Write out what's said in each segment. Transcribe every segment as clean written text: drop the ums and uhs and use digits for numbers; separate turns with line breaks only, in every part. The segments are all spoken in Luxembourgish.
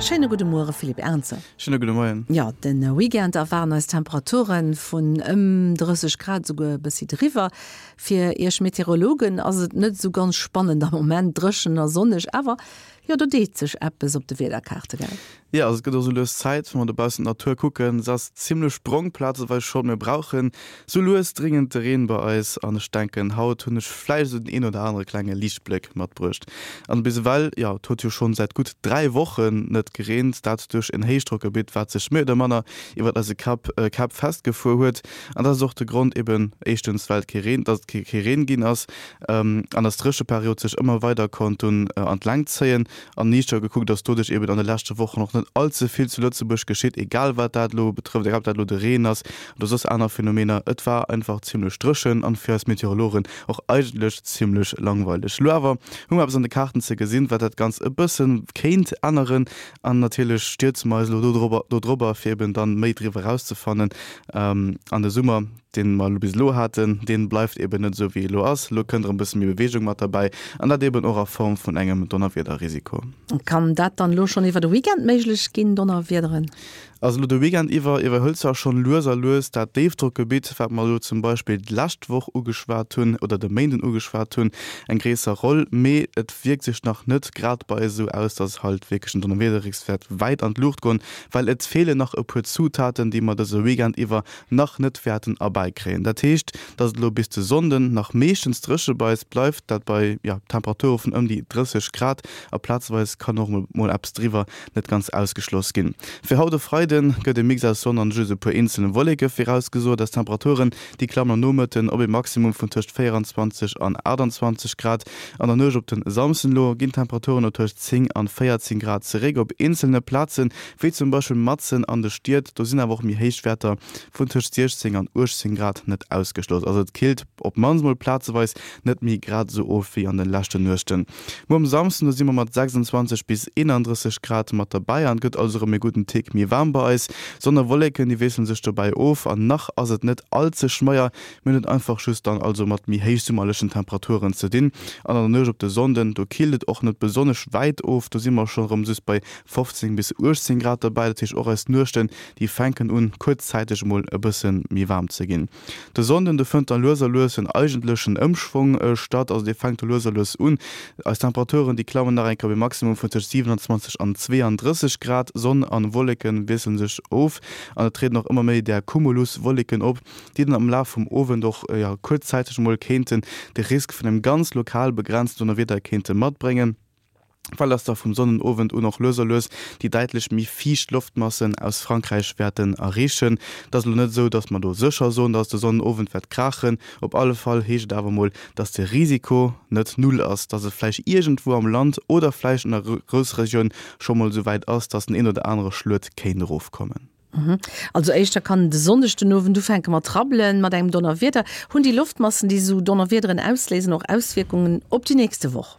Schéine gudde Muere Philippe Ernzer.
Schéine gudde Moien.
Jo, de Weekend erwaarden eis Temperature vun ëm 30 Grad, esouguer e bëssi driwwer. Fir Iech Meteorologen ass et net esou ganz spannend am Moment, dréchen a sonneg, awer jo, do deet sech eppes op de Wiederkaarte, gell?
Jo, also et gëtt och sou lues Zäit, wa mer dobaussen d'Natur kucken, se ass zimlech brong plazeweis schonn. Mir brauchen sou lues dringend de Reen bei eis an ech denken, haut hunn ech vläicht esou den een oder anere klenge Liichtbléck matbruecht. An bis ewell, jo, et huet jo schonn säit gutt 3 Wochen net gereent, dat duerch en Héichdrockgebitt, wat sech méi oder manner iwwert eise Kapp Käpp festgefuer huet. An dat ass och de Grond eben, éischtens well et kee Reen, dass et kee Reen ginn ass an dass d'Drécheperiod sech ëmmer weider konnt dunn an d'Längt zéien. An niichter gekuckt ass doduerch eben an de leschte Wochen och net all ze vill zu Lëtzebuerg geschitt, egal wat dat elo betrëfft, egal ob dat elo de Reen ass oder soss aner Phänomener. Et war einfach zimmlech dréchen an fir eis Meteorologen och eigentlech zimmlech langweileg. Elo awer hu mer eppes an de Kaarten ze gesinn, wat dat Ganzt e bësse kéint änneren an natierlech stierze mer eis elo dodrobber, fir eben dann méi driwwer erauszefannen. An de Summer, deen mer bis elo haten, deen bleift eben net esou wéi e elo ass. Elo kënnt erëm e bësse méi Beweegung mat derbäi an dat eben och a Form vun engem Donnerwiederrisiko.
Kann dat dann elo schonn iwwer de Weekend méiglech ginn, Donnerwiederen?
Also elo de Weekend iwwer iwwerhëlt zwar schonn lues a lues dat Déifdrockgebitt, wat mer elo zum Beispill d'lescht Woch ugeschwat hunn oder de Méinden ugeschwat hunn, eng gréisser Roll, mee et wierkt sech nach net grad bei eis esou aus, dass halt wierklech den Donnerwiederrisk wäert wäit an d'Luucht goen, well et feelen nach e puer Zutaten, déi mer dëse Weekend iwwer nach net wäerten erbäikréien. Dat heescht, dass et elo bis de Sonnden nach meeschtens dréche bei eis bleift, dat bei, jo, Temperature vun ëm déi 30 Grad a plazeweis kann och mol eppes driwwer net ganz ausgeschloss ginn. Fir haut e Freide gëtt e Mix aus Sonn an just e puer eenzele Wolleke virausgesot. Eis Temperaturen, déi klammen am Nomëtten op e Maximum vun tëscht 24 an 28 Grad. An der Nuecht op den Samsden elo ginn d'Temperaturen no tëscht 10 an 14 Grad zeréck. Op eenzelne Plazen, wéi zum Beispill matzen an de Stied, do sinn awer och méi héich Wäerter vun tëscht 16 an 18 Grad net ausgeschloss. Also et killt op d'mannst mol plazeweis net méi grad esou of wéi an de leschten Nuechten. Muer um Samsden, do si mer mat 26 bis 31 Grad mat derbäi an et gëtt also erëm e gudden Tick méi waarm bei eis. Sonn a Wolleken, déi wiessele sech dobäi of an nach ass et net all ze schmeier. Mir hunn et einfach just dann also mat méi héichsummerlechen Temperaturen ze dinn. An an der Nuecht op de Sonnden, do killt et och net besonnesch wäit of, do si mer schonn erëm just bei 15 bis 18 Grad derbäi. Dat heescht och eis Nuechten, déi fänken un kuerzzäiteg emol e bësse méi waarm ze ginn. De Sonnden, do fënnt dann lues a lues en eigentlechen Ëmschwong statt, also dee fänkt do lues a lues un. Eis Temperaturen, déi klammen nach eng Kéier op e Maximum vun tëscht 27 an 32 Grad. Sonn an Wolleke wiessele sech of an et trieden och ëmmer méi där Cumuluswolleken op, déi dann am Laf vum Owend och, jo, kuerzzäiteg emol kéinten de Risk vun engem ganz lokal begrenzten Donnerwieder kéinte matbréngen. Well dass da vum Sonnenowend un och lues a lues déi däitlech méi fiicht Loftmassen aus Frankräich wäerten erreechen. Et ass elo net esou, dass mer do sécher soen, dass de Sonnenowend wäert kraachen. Op alle Fall heescht et awer mol, dass de Risiko net null ass, dass et vläicht iergendwou am Land oder vläicht an der Groussregioun scho mol esou wäit ass, dass den een oder anere Schluet kéint erofkommen.
Also éischter kann de Sonndeg den Owend ufänke mat rabbelen, mat engem Donnerwieder. Hunn déi Loftmassen, déi esou Donnerwiederen ausléisen, och Auswierkungen op déi nächste Woch?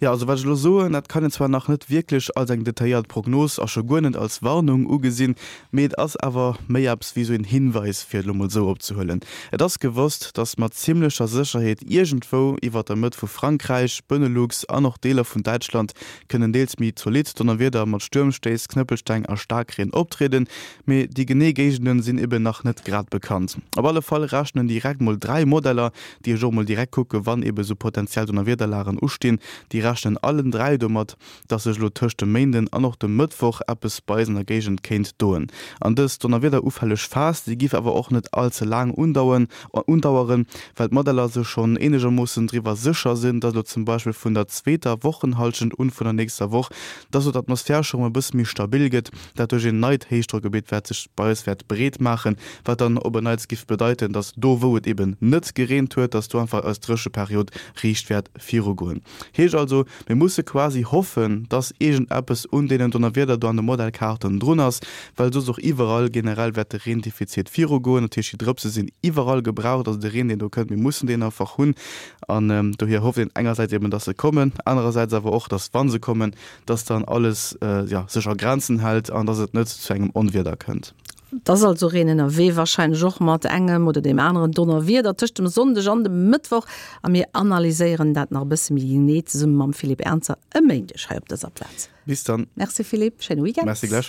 Jo, also wat ech elo soen, dat kann een zwar nach net wierklech als eng detailléiert Prognos a scho guer net als Warnung ugesinn, mee et ass awer méi eppes wéi esou een Hinweis, fir et elo mol esou opzehuelen. Et ass gewosst, dass mat zimmlecher Sécherheet iergendwou iwwert der Mëtt vu Frankräich, Benelux an och Deeler vun Däitschland kënnen deels méi zolidd Donnerwieder mat Stuermstéiss, Knëppelsteng a Staarkreen optrieden, mee déi genee Géigende sinn eben nach net grad bekannt. Op alle Fall rechnen direkt mol 3 Modeller, déi ech och mol direkt kucke wann eben sou potenziell Donnerwiederlagen ustinn, déi rechnen allen 3 domat, dass sech elo tëscht dem Méinden an och dem Mëttwoch eppes bei eis an der Géigend kéint doen. An dës donnerwiederufälleg Phas, déi giff awer och net all ze laang undauen, undaueren, well d'Modeller sech schonn eenegermoossen driwwer sécher sinn, dass elo zum Beispill vun der zweeter Wochenhallschent un vun der nächster Woch, dass elo d'Atmosphär scho rëm e bësse méi stabil gëtt, dat duerch een neit Héichdrockgebitt wat sech bei eis wäert breet maachen, wat dann op en Neits giff bedeiten, dass do wou et eben net gereent huet, dass do einfach eis Drécheperiod riicht wäert virugoen. Heescht also, mir musse quasi hoffen, dass iergendeppes un deenen Donnerwieder do an de Modellkaarten drun ass, well soss och iwwerall generell wäert de Reendefizit virugoen. Dat heescht, déi Drëpse sinn iwwerall gebraucht, also de Reen, deen do kënnt, mir mussen deen einfach hunn. An dohier hofft een engersäits eben, dass se kommen, anerersäits awer och, dass, wa se kommen, dass dann alles, jo, sech a Grenzen hält an dass et net zu engem Onwieder kënnt.
Et ass also Reen ënnerwee, warscheinlech och mat engem oder deem aneren Donnerwieder tëscht dem Sonndeg an dem Mëttwoch. A mir analyséieren dat nach e bësse méi genee zesumme mam Philippe Ernzer e Méindeg hei op dëser Plaz.
Bis dann.
Merci Philippe, schéine Weekend.
Merci gläichfalls.